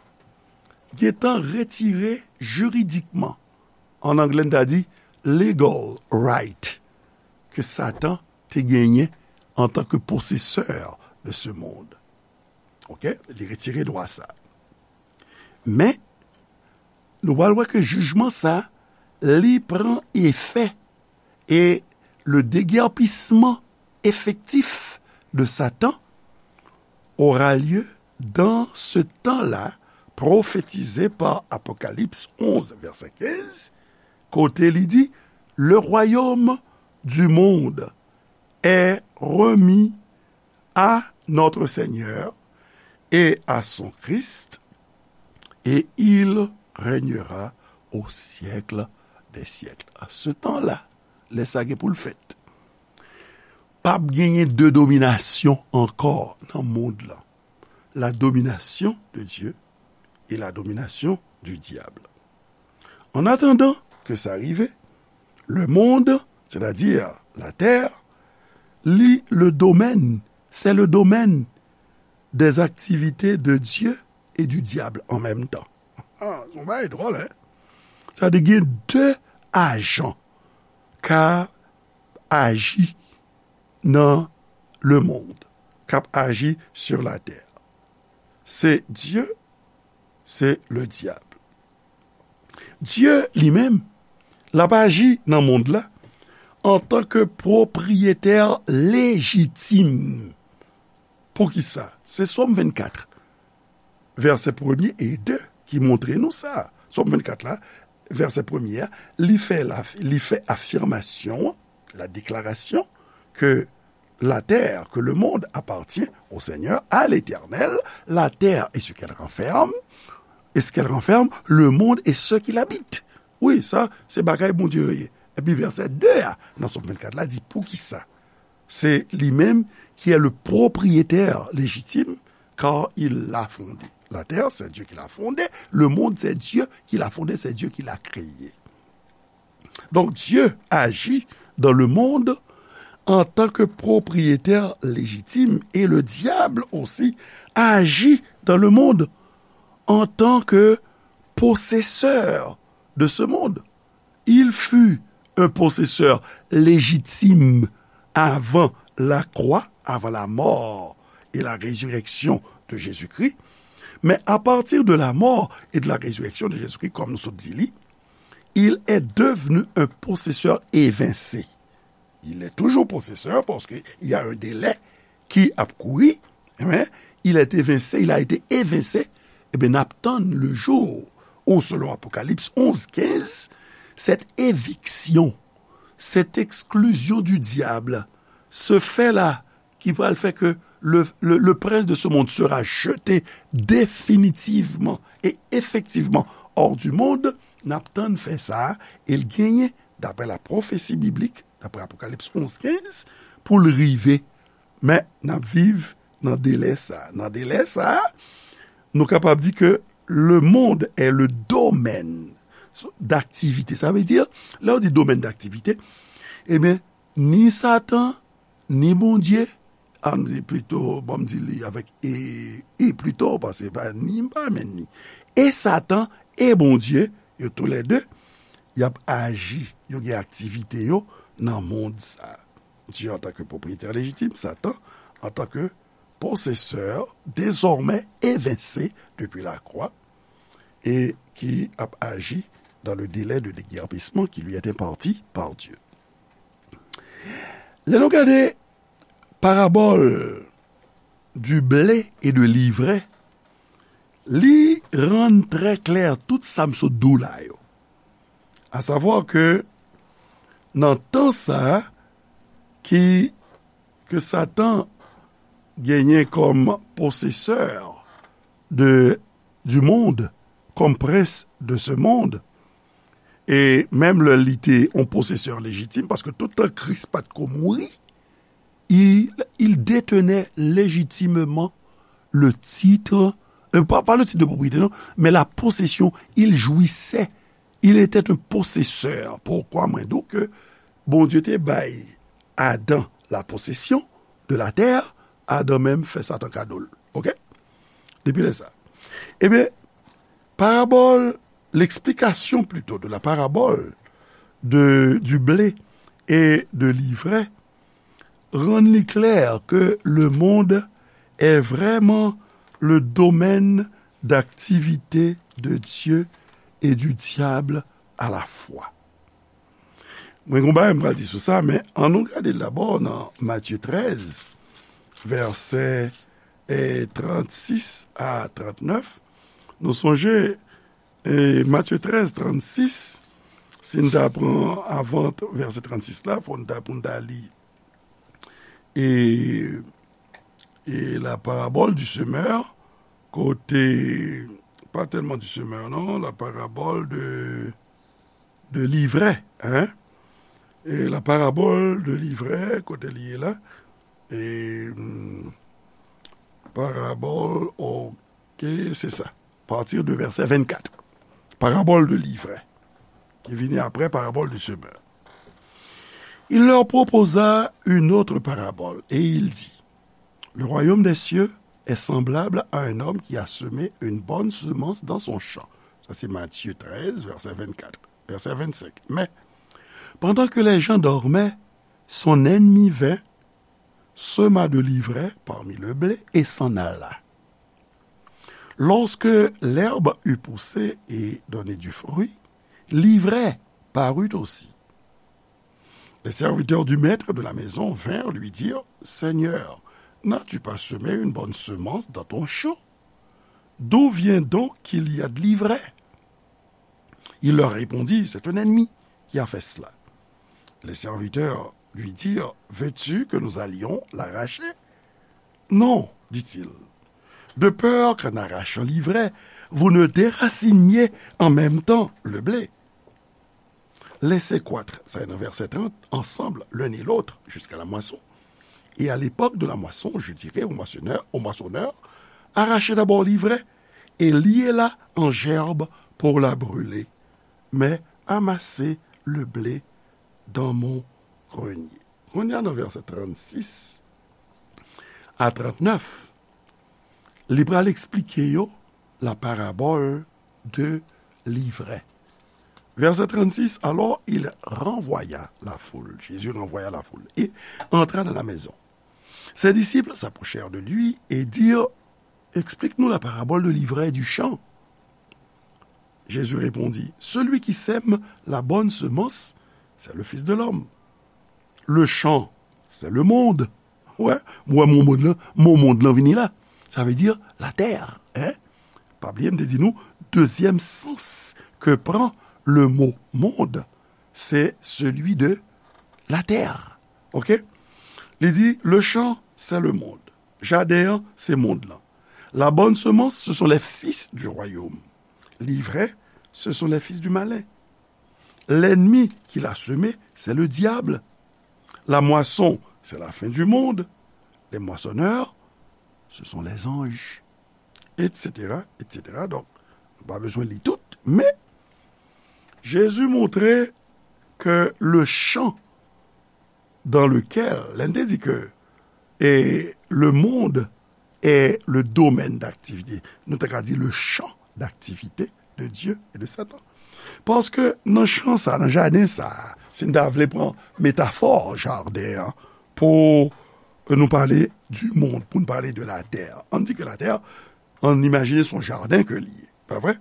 gentan retire jiridikman, an anglè n ta di legal right, ke Satan te genyen antanke posesè de ce monde. Ok? Li retire dwa sa. Men, nou pral wè ke jijman sa, li pran efè, et le déguerpissement effectif de Satan aura lieu dans ce temps-là, prophétisé par Apocalypse onze, verset quinze, kote li di, le royaume du monde est remis à notre Seigneur et à son Christ, et il régnera au siècle des siècles. À ce temps-là, lè sa gen pou l fèt, p ap genyen de dominasyon ankò nan mond lan. La domination de Dieu et la domination du diable. En attendant que ça arrive, le monde, c'est-à-dire la terre, li le domaine, c'est le domaine des activités de Dieu et du diable en même temps. Ah, se yon bagay dwòl, hein? Sa vle di gen de ajan k ap aji nan le monde, k ap aji sur la terre. Se Dye, se le dyab. Dye li menm, l ap aji nan mond la antanke pwopriyetè lejitim. Poukisa? Se Sòm vennkat, vèsè premye e de ki montre nou sa. Sòm vennkat la, vèsè premye a, li fè la, li fè afimasyon an, la déclaration, que la terre, que le monde appartient au Seigneur, à l'Éternel, la terre et ce qu'elle renferme, et ce qu'elle renferme, le monde et ceux qui l'habitent. Wi, sa, se bagay Bondye yo ye. Epi vèsè de a, nan Sòm vennkat la, di, poukisa? C'est lui-même qui est le propriétaire légitime, car il l'a fondé. La terre, c'est Dieu qui l'a fondée. Le monde, c'est Dieu qui l'a fondé, c'est Dieu qui l'a créé. Donc, Dieu agit dans le monde en tant que propriétaire légitime et le diable aussi agit dans le monde en tant que possesseur de ce monde. Il fut un possesseur légitime avant la croix, avant la mort et la résurrection de Jésus-Christ. Mais à partir de la mort et de la résurrection de Jésus-Christ, comme nous sommes dit, il est devenu un possesseur évincé. Il est toujours possesseur parce qu'il y a un délai ki ap kouri, amen, il est évincé, il a été évincé, ebyen, n ap tann le jour où, selon Apocalypse onze quinze, cette éviction, cette exclusion du diable se fait là, ki pral fè ke le, le, le prince de ce monde sera jeté définitivement et effectivement hors du monde, n ap tann fè sa, e l genyen, d'après la prophétie biblique, d'après Apocalypse onze quinze, pou l rive. Men, n ap viv nan delè sa. Nan delè sa, nou kapab di ke le monde est le domaine d'activité. Sa vle di, lè w di domaine d'activité, ebyen, ni Satan, ni Bondye, an di plito, bon, m di li avèk e, e plito, paske pa ni, m pa renmen ni. E Satan, e Bondye, yo toulède, y ap aji, yo gen aktivite yo nan mond sa. Dieu en tant que propriétaire légitime, Satan en tant que possesseur désormais évincé depuis la croix et qui a agi dans le délai de déguerpissement qui lui est imparti par Dieu. Lè nou gade parabòl du blé et de l'ivraie, li rann trè klè tout sa m sot di w la yo. A savwa ke nan tan sa a, ki, ke Satan genyen kòm posesè de, du monde, kòm prens de ce monde, e menm lè li te yon posesè lejitim, paske tout tan Kris pa t ko mouri, il, il détenait légitimement le titre, euh, pas, pas le titre de propriété, non, mais la possession, il jouissait, il était un possesseur. Poukwa mwen di w ke Bondye te bay Adan la possession de la terre, Adan menm fè Satan kado l. Oke? Depi lè sa. Ebyen, parabòl, l'explication plutôt de la parabole de, du blé et de l'ivraie rann li klè ke le monde est vraiment le domaine d'activité de Dieu et du diable à la fois. Mwen gen yon bagay m pral di sou sa, men ann nou gade l dabò nan Matye trèz, vèsè, eh, trannsis a trannèf. Nou sonje, eh, Matye trèz, trannsis, si n ta pran avan t-, vèsè trannsis la, fò n ta, pou n ta li, e, e la parabole du semeur, kote, pa tèlman du semeur, non, la parabole de, de l'ivraie, hein? E la parabòl de livrè, kote li ye la? E, hmm, parabòl, ok, se sa. Partir de vèsè vennkat. Parabòl de livrè, ki vini apre parabòl du semeur. Il leur proposa une autre parabole, et il dit, Le royaume des cieux est semblable à un homme qui a semé une bonne semence dans son champ. Sa se Matye trèz, vèsè vennkat, vèsè vennsenk. Mais, pendant que les gens dormaient, son ennemi vint, sema de livrè parmi le blé et s'en alla. Lorsque l'herbe eut poussé et donné du fruit, l'ivrè parut aussi. Les serviteurs du maître de la maison vinrent lui dire, Seigneur, n'as-tu pas semé une bonne semence dans ton champ? D'où vient donc qu'il y a de l'ivraie? Il leur répondit, C'est un ennemi qui a fait cela. Les serviteurs lui dirent, Veux-tu que nous allions l'arracher? Non, dit-il, de peur qu'en arrachant l'ivraie, vous ne déraciniez en même temps le blé. Laissez croître, ça est dans verset trente, ensemble l'un et l'autre jusqu'à la moisson. Et à l'époque de la moisson, je dirai au moissonneur, au moissonneur, Arrachez d'abord l'ivraie et liez-la en gerbes pour la brûler, mais amassez le blé dans mon grenier. Kounye a nan vèsè trannsis a trannèf, li pral eksplike yo la parabòl de livrè. Verset trente-six, alors il renvoya la foule. Jésus renvoya la foule et entra dans la maison. Ses disciples s'approchèrent de lui et dirent, Explique-nous la parabole de l'ivraie et du champ. Jésus répondit, Celui qui sème la bonne semence, c'est le Fils de l'homme. Le champ, c'est le monde. Wè, wè mo mond lan, mo mond lan vini la. Sa vle di latè, hein? Pa bliye m te di nou, dezyèm sans ke pran le mot monde, c'est celui de la terre. Ok? Li di, le champ, c'est le monde. Jaden an, se mond lan. La bonne semence, ce sont les fils du royaume. L'ivraie, ce sont les fils du malin. L'ennemi qui l'a semé, c'est le diable. La moisson, c'est la fin du monde. Les moissonneurs, ce sont les anges. Et cetera, et cetera. Donk, nou pa bezwen li tout, men Jezi montre ke le champ dans lequel, lè n te di ke, e, le monde est le domaine d'activité, nou ta ka di le champ d'activité de Dieu et de Satan. Paske nan chan sa, nan jaden sa, si n ta vle pran metafò jaden an, pou nou pale du monde, pou n pale de la terre, ann di ke la terre, ann imajine se yon jaden ke li ye, pa vre?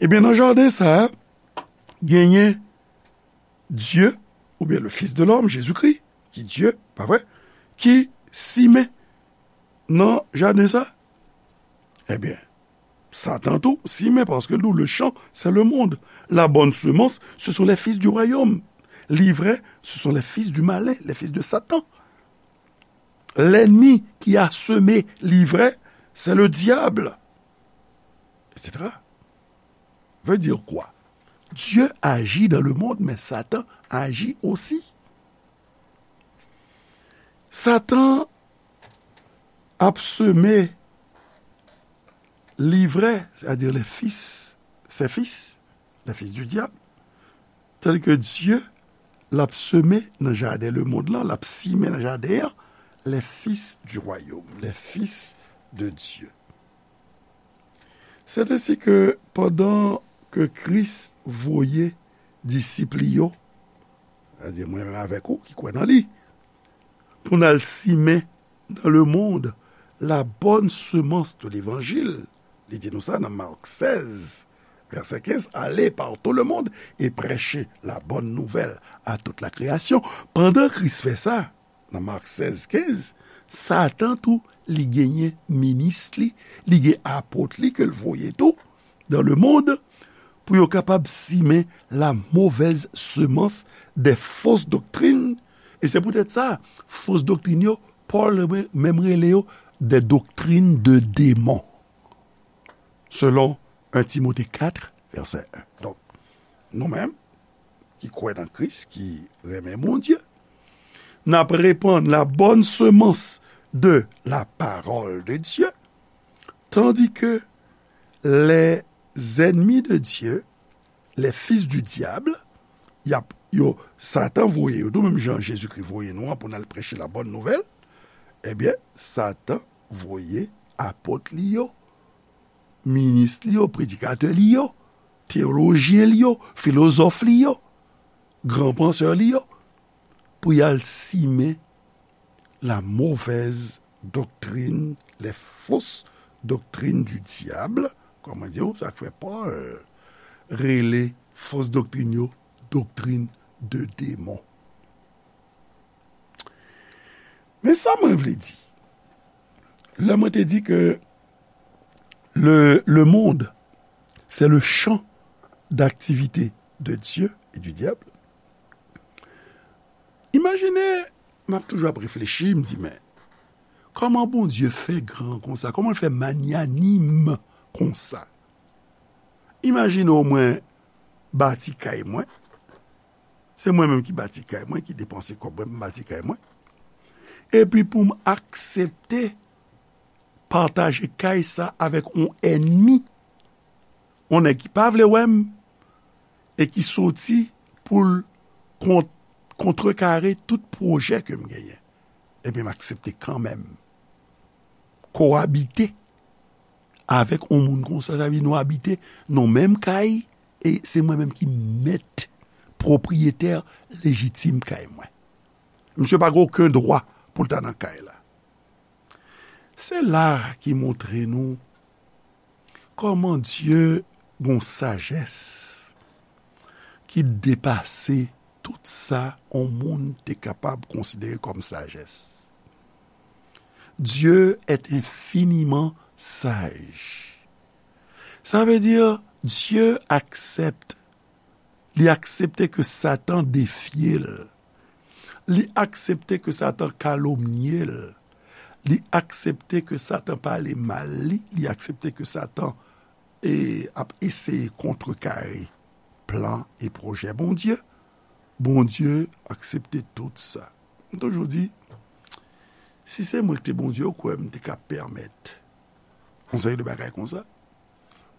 Ebyen, nan jaden sa, genyen Dye, oubyen le Fils de l'homme, Jezikri, ki Dye, pa vre, ki simen nan jaden sa. Ebyen, Satan tou simen, paske nou, le champ, c'est le monde. La bonne semence, ce sont les fils du royaume. L'ivraie, ce sont les fils du malin, les fils de Satan. L'ennemi qui a semé l'ivraie, c'est le diable, et cetera. Veut dire quoi? Dieu agit dans le monde, mais Satan agit aussi. Satan ap seme livrè, c'est-à-dire les fils, ses fils, les fils du diable, tandis que Dieu, l ap seme nan jaden lemonn lan, l ap simen nan jaden an, les fils du royaume, les fils de Dieu. C'est ainsi que pandan ke Kris voye disip li yo, sètadi mwen menm avèk ou ki kwè nan li, pou n al simen dans le monde la bonne semence de l'évangile. Li di nou sa nan Mak sèz, vèsè kenz, Allez par tout le monde et prêchez la bonne nouvelle à toute la création. Pandan Kris fè sa, nan Mak sèz kenz, Satan tou, li genyen minis li, li gen apot li ke l voye tou dans le monde, pou yo kapab simen la mauvaise semence des fausses doctrines. E se poutèt sa, fos doktrin yo, Pòl menm rele yo des doctrines de démons, selon un Timote kat, vèsè en. Donk, nou menm, ki kwè nan Kris, ki renmen Bondye. N ap repann la bonne semence de la parole de Dieu, tandis que les ennemis de Dieu, les fils du diable, y ap, yo, Satan voye yo, tou menm jan Jezikri voye nou an pou n al preche la bonne nouvelle, ebyen, Satan voye apot li yo, minis li yo, predikatè li yo, teyolojyen li yo, filozòf li yo, gran pansè li yo, pou y al simen la mauvaise doctrine, les fausses doctrines du diable, kòman di w, sa k fè Pòl rele fos doktrin yo doktrin de demon. Men sa mwen vle di, lè mwen te di ke le, le monde, c'est le champ d'activité de Dieu et du diable. Imajine, m ap toujou ap reflechi, m di, men, kòman Bondye fè gran konsa? Kòman l fè manyanim konsa? Imajine w mwen bati kay mwen. Se mwen menm ki bati kay mwen, ki depanse kòb mwen pou m bati kay mwen. Epi pou m aksepte pataje kay sa avèk yon ènmi, yon nèg ki pa vle wè m, e ki soti pou l kont-, kontrekare tout pwojè ke m genyen. Epi m aksepte kanmenm kowabite avèk yon moun konsa, sa vle di nou abite nan menm kay, e se mwen menm ki mèt, pwopriyetè lejitim kay mwen. Misye pa gen okenn dwa pou l ta nan kay la. Se la ki montre nou kòman Dye gon sajès ki depase tout sa yon moun te kapab konsidere kòm sajès. Dieu est infiniment sage. Sa vle di, Dye aksepte, li aksepte ke Satan defye l. Li aksepte ke Satan kalomnye l. Li aksepte ke Satan pale mal li. Li aksepte ke Satan, e, ap eseye kontrekare plan e pwojè Bondye. Bondye aksepte tout sa. M toujou di, si se mwen ki te Bondye, ou kwè m te ka pèmèt yon seri de bagay konsa?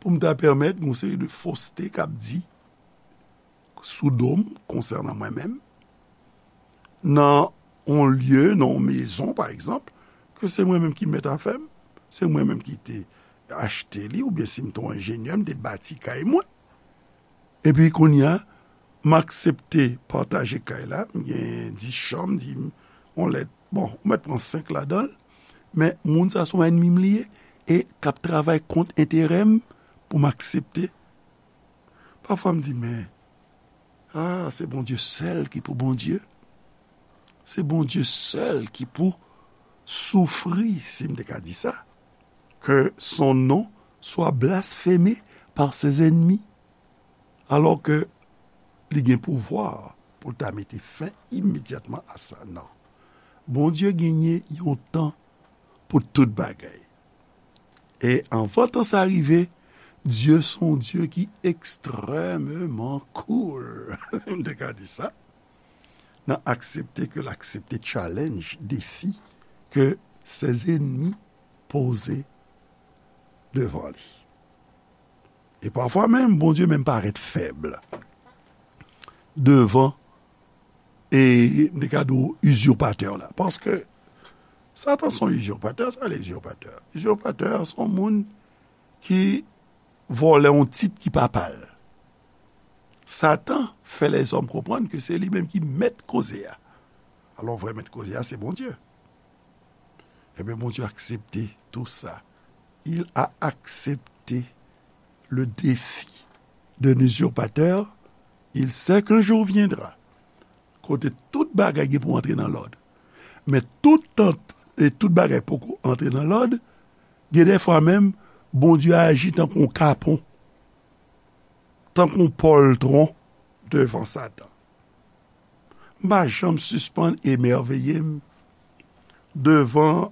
Pou m ta pèmèt yon seri de foste k ap di sou do m konsènan mwen menm, nan yon lye, nan yon mezon, pa egzanp, ke se mwen menm ki mèt afè m, se mwen menm ki te achte li, oubyen si m te yon enjenyè, m te bati kay mwen. Epi kounye a, m aksepte pataje kay la, m gen dis chanm, di m, yon lèt, bon, ou mèt pran senk ladan l, men moun sa se yon ènmi m li ye, e k ap travay kont enterè m pou m aksepte. Pafwa m di, men, ah, se Bondye sèl ki pou Bondye. Se Bondye sèl ki pou soufri, si m te ka di sa, que son nom soit blasphémé par ses ennemis, alors que li gen pouvwa pou l ta mete fen imedyatman a sa. Non. Bondye genyen yon tan pou tout bagay. E anvan tan sa rive, Dye se yon Dye ki ekstrèmeman cool. M te ka di sa. Nan aksepte ke l aksepte challenge, defi ke ses ennemis poze devan li. E pafwa menm, Bondye menm parèt fèb devan, e m te ka di w, izirpatè la. Paske Satan se yon izirpatè, sa vle izirpatè. Izirpatè se yon moun ki vòlè yon tit ki pa pa l. Satan fè lèzòm konprann ke se li menm ki mèt koze a. Alò, vrè mèt koze a, se Bondye. Ebyen, Bondye aksepte tou sa. Il a accepté le défi d'un usurpateur. Il sait qu'un jour viendra kote tout bagay gen pou antre nan lòd. Men tout tan e tout bagay poko antre nan lòd, gen dèfwa menm, Bondye aji tankou yon kapon, tankou yon pòltwon devan Satan. M pa janm sispann emèveye m devan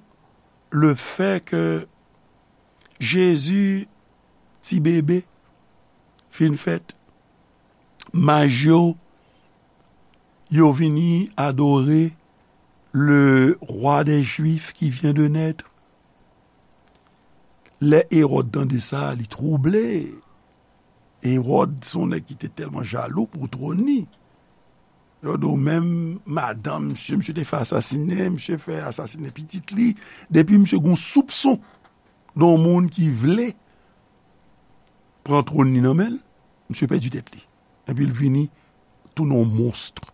le fè ke Jezi, ti bebe, fin fèt, maj yo Yo vini adore le roi des Juifs qui vient de naître. Lè Ewòd tande sa, li twouble. Ewòd se yon nèg ki te tèlman jalou pou twòn li. Yo di w menm madanm misye, misye te fè asasinen, misye fè asasinen pitit li. Depi misye gen yon soupson de yon moun ki vle pran twòn li nan men l, misye pèdi tèt li. Epi l vini tounen yon monstr.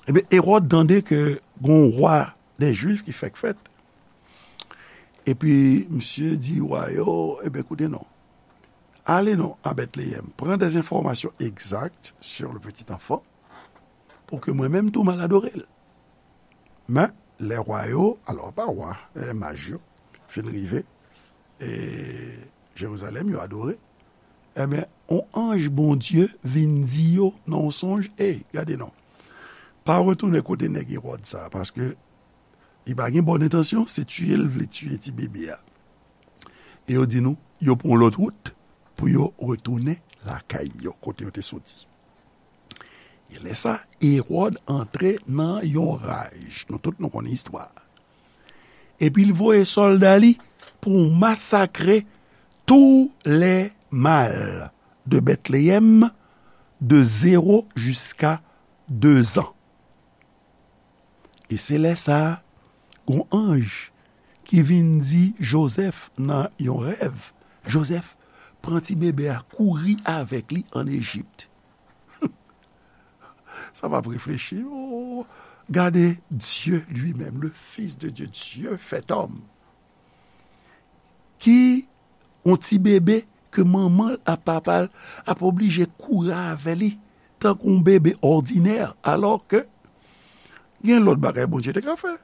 Ebyen, Ewòd tande ke gen yon wa dè Jwif ki fèk fèt. Epi, misye di wa yo, ebyen, koute non. Ale non a Bètleyèm, pran des informations exactes sur le petit enfant, pou ke mwen menm tou m al adore l. Men, lè wa yo, alò, pa wa, e, maj yo, fin rive, e, Jerizalèm, yo adore, ebyen, yon anj Bondye vin di yo nan yon sonj, ey, gade non. Pa retounen kote nèg Ewòd sa, paske li pa gen bòn entansyon, se tiye l vle tiye ti bebe a. E yo di nou, yo pran yon lòt wout pou yo retounen lakay yo, kote yo te soti. E lè sa, Ewòd antre nan yon raj. Nou tout nou konnen istwa a. Epi l voye sòlda li pou masakre tous les mâles de Bethléem, de zéro jusqu'à deux ans. E se lè sa a, gon anj ki vin di Jozèf nan yon rèv, Jozèf, pran ti bebe a, kouri avèk li ann Ejip. Sa p ap reflechi. Oh, gade Dieu lui-même, le Fils de Dieu, Dieu fait homme, ki yon ti bebe ke manman l ak papa l ap oblije kouri avè li tankou yon bebe òdinè, alò ke gen lòt bagay Bondye te ka fè.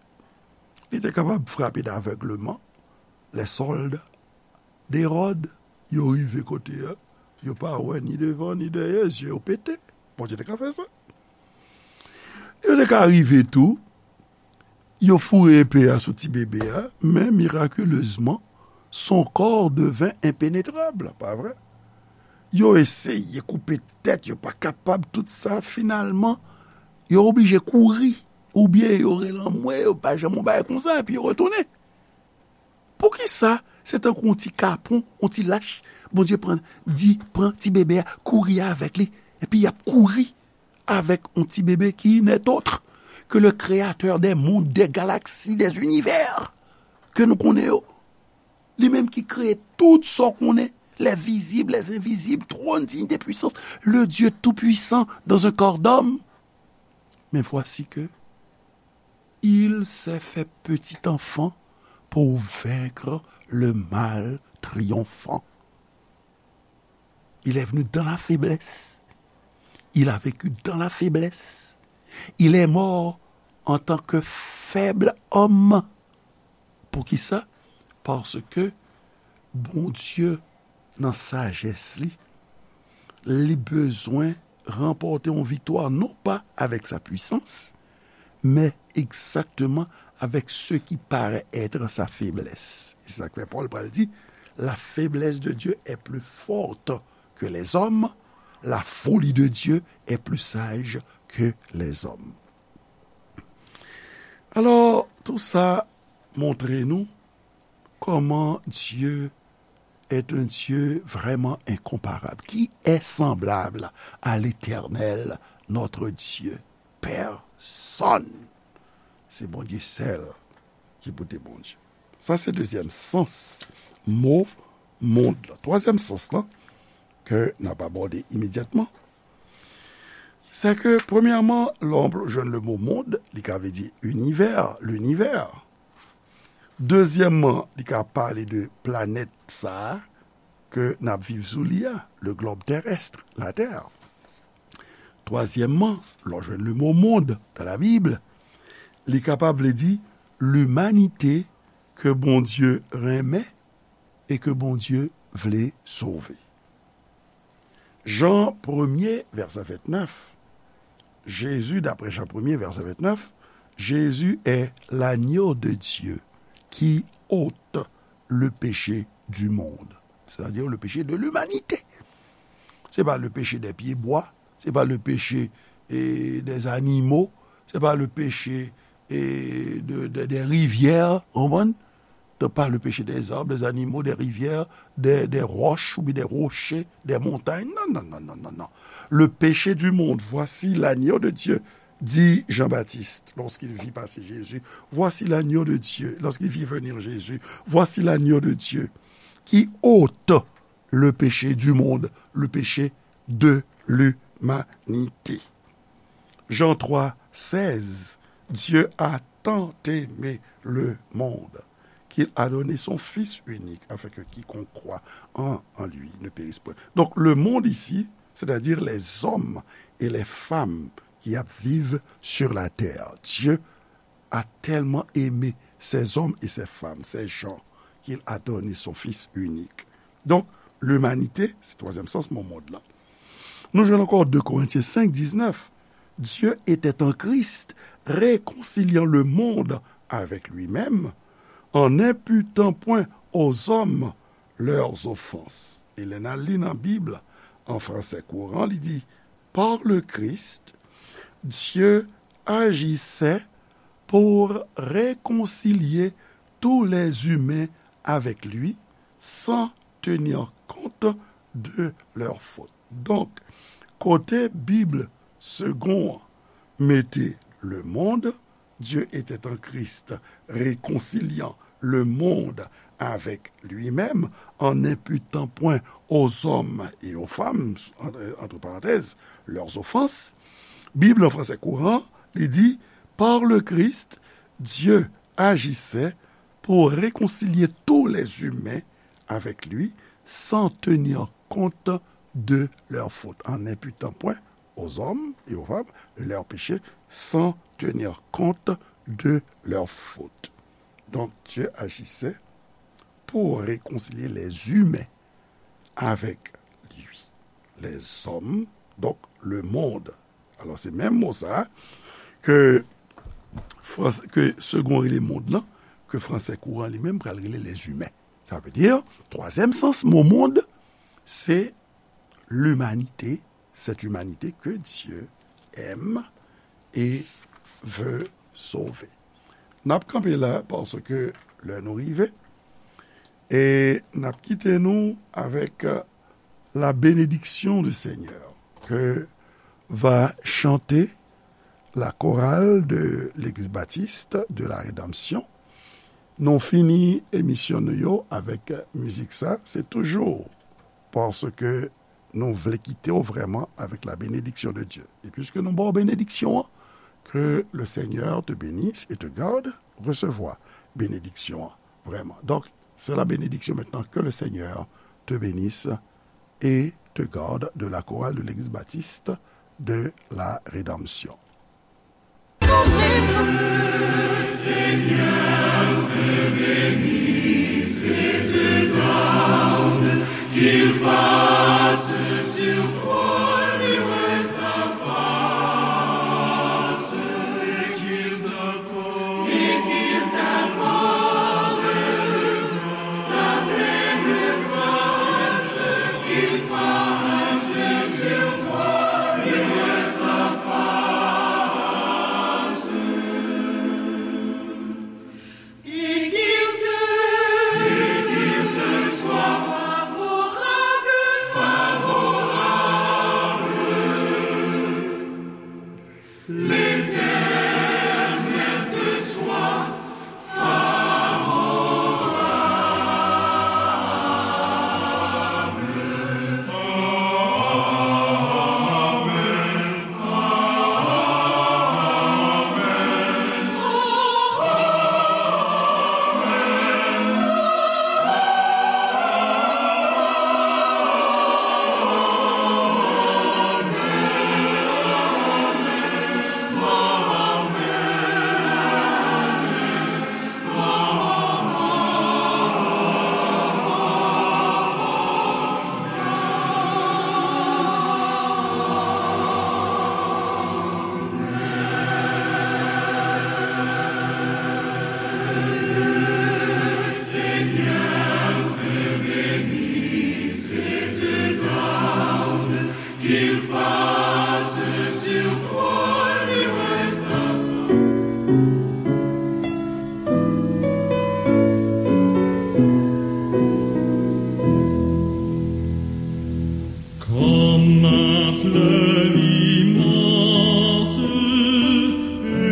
Li te kapab frape davègleman les soldes d'Hérode. Yo rive kote a, yo pa wè ni devan ni dèyè, zye yo pete. Bondye te ka fè sa. Yo te ka rive tou, yo foure epe a sou ti bebe a, men mirakilezman, son corps devint impénétrable, pa vre? Yo eseye koupe tèt, yo pa kapab, tout sa, finalman, yo oblije kouri, oubyen yo rele anmwe, yo pa janm yon bagay konsa, epi yo retounen. Poukisa se tankou yon ti kapon, yon ti lach, Bondye pran, di, pran ti bebe a, kouri avèk li, epi y ap kouri avèk yon ti bebe ki n'est autre que le créateur des mondes, des galaxies, des univers ke nou konnen yo. Li menm ki kreye tout sa w konnen, les visibles, les invisibles, trône, dignité, puissance, le Dieu tout-puissant dans un corps d'homme. Mais voici que il s'est fait petit enfant pour vaincre le mal triomphant. Il est venu dans la faiblesse. Il a vécu dans la faiblesse. Il est mort en tant que faible homme. Poukisa? Paske Bondye, nan sajès li, li bezwen ranpòte yon viktwa non pa avèk sa pwisans, men egzakteman avec ce qui paraît être sa faiblesse. E se sa k fè Pòl pral di, la faiblesse de Dieu est plus forte que les hommes, la folie de Dieu est plus sage que les hommes. Alò, tou sa montre nou kòman Dye est un Dieu vraiment incomparable. Qui est semblable à l'Éternel, notre Dieu? Pèsonn. Se Bondye sèl ki pote Bondye. Sa se dezyèm sans mo mond lan. Twazyèm sans lan ke n ap abòde imedyatman, se ke, premyèman, lè w jwenn le mo mond, li ka vle di inivè, linivè. Dezyèmman, li ka pale de planèt sa a ke n ap viv sou li a, le globe terrestre, la Terre. Twazyèmman, lè w jwenn le mo mond dans la Bible, li kapab vle di limanite ke Bondye renmen e ke Bondye vle sove. Jan premye, vèsè ventnèf, Jésus, d'après Jean premier, verset vingt-neuf, Jésus est l'agneau de Dieu qui ôte le péché du monde, c'est-à-dire le péché de l'humanité. Se pa le péché des pieds bois, se pa le péché et des animaux, c'est pas le péché et de, de, des rivières, ou konprann? Donc, pas le péché des arbres, des animaux, des rivières, des, des roches ou bien des rochers, des montagnes. Non, non, non, non, non, non. Le péché du monde, voici l'agneau de Dieu, dit Jean-Baptiste lorsqu'il vit passer Jésus. Voici l'agneau de Dieu, lorsqu'il vit venir Jésus. Voici l'agneau de Dieu qui ôte le péché du monde, le péché de l'humanité. Jean trois seize, Dieu a tant aimé le monde qu'il a donné son Fils unique, afin que quiconque croit en, en lui ne périsse point. Donc, le monde ici, c'est-à-dire les hommes et les femmes qui ap viv sur la terre. Dieu a tellement aimé ces hommes et ces femmes, ces gens, qu'il a donné son Fils unique. Donc, l'humanité, se twazyèm sans mo mond lan. Nou jwenn ankò deux Corinthiens cinq dix-neuf. Dieu était en Christ, réconciliant le monde avec lui-même, en n'imputant point aux hommes leurs offenses. E lè n al li nan Bib, an fransè kouran, li di, par le Christ, Dieu agissait pour réconcilier tous les humains avec lui, sans tenir compte de leurs fautes. Donk, kote Bib Segond an mete le monde, Dieu était en Christ, réconciliant le monde avec lui-même, en n'imputant point aux hommes et aux femmes, entre, entre parenthèses, leurs offenses. Bib an fransè kouran, li di, par le Christ, Dieu agissait pour réconcilier tous les humains avec lui, sans tenir compte de leurs fautes, en n'imputant point aux hommes et aux femmes leurs péchés, sans tenir compte de leurs fautes. Donc, Dieu agissait pour réconcilier les humains avec lui. Les hommes, donc le monde. Alò, se menm mo sa ke, frans, ke Segond rele mond lan, ke fransè kouran li menm pral rele les humains. Sa vle di, twazyèm sans mo mond, se l'humanité, cette humanité que Dieu aime et veut sauver. N ap kanpe la, paske lè nou rive, e n ap kite nou avec, euh, la bénédiction du Seigneur que va chanter la chorale de l'Église baptiste de la Rédemption. Nou fini emisyon nou yo avec mizik sa. Se toujou paske nou vle kite w vrèman avec la bénédiction de Dieu. E piske nou ba w benediksyon an, que le Seigneur te bénisse et te garde, resevwa benediksyon an vrèman. Donc, c'est la bénédiction maintenant, que le Seigneur te bénisse et te garde, de la chorale de l'Église baptiste de la Rédemption.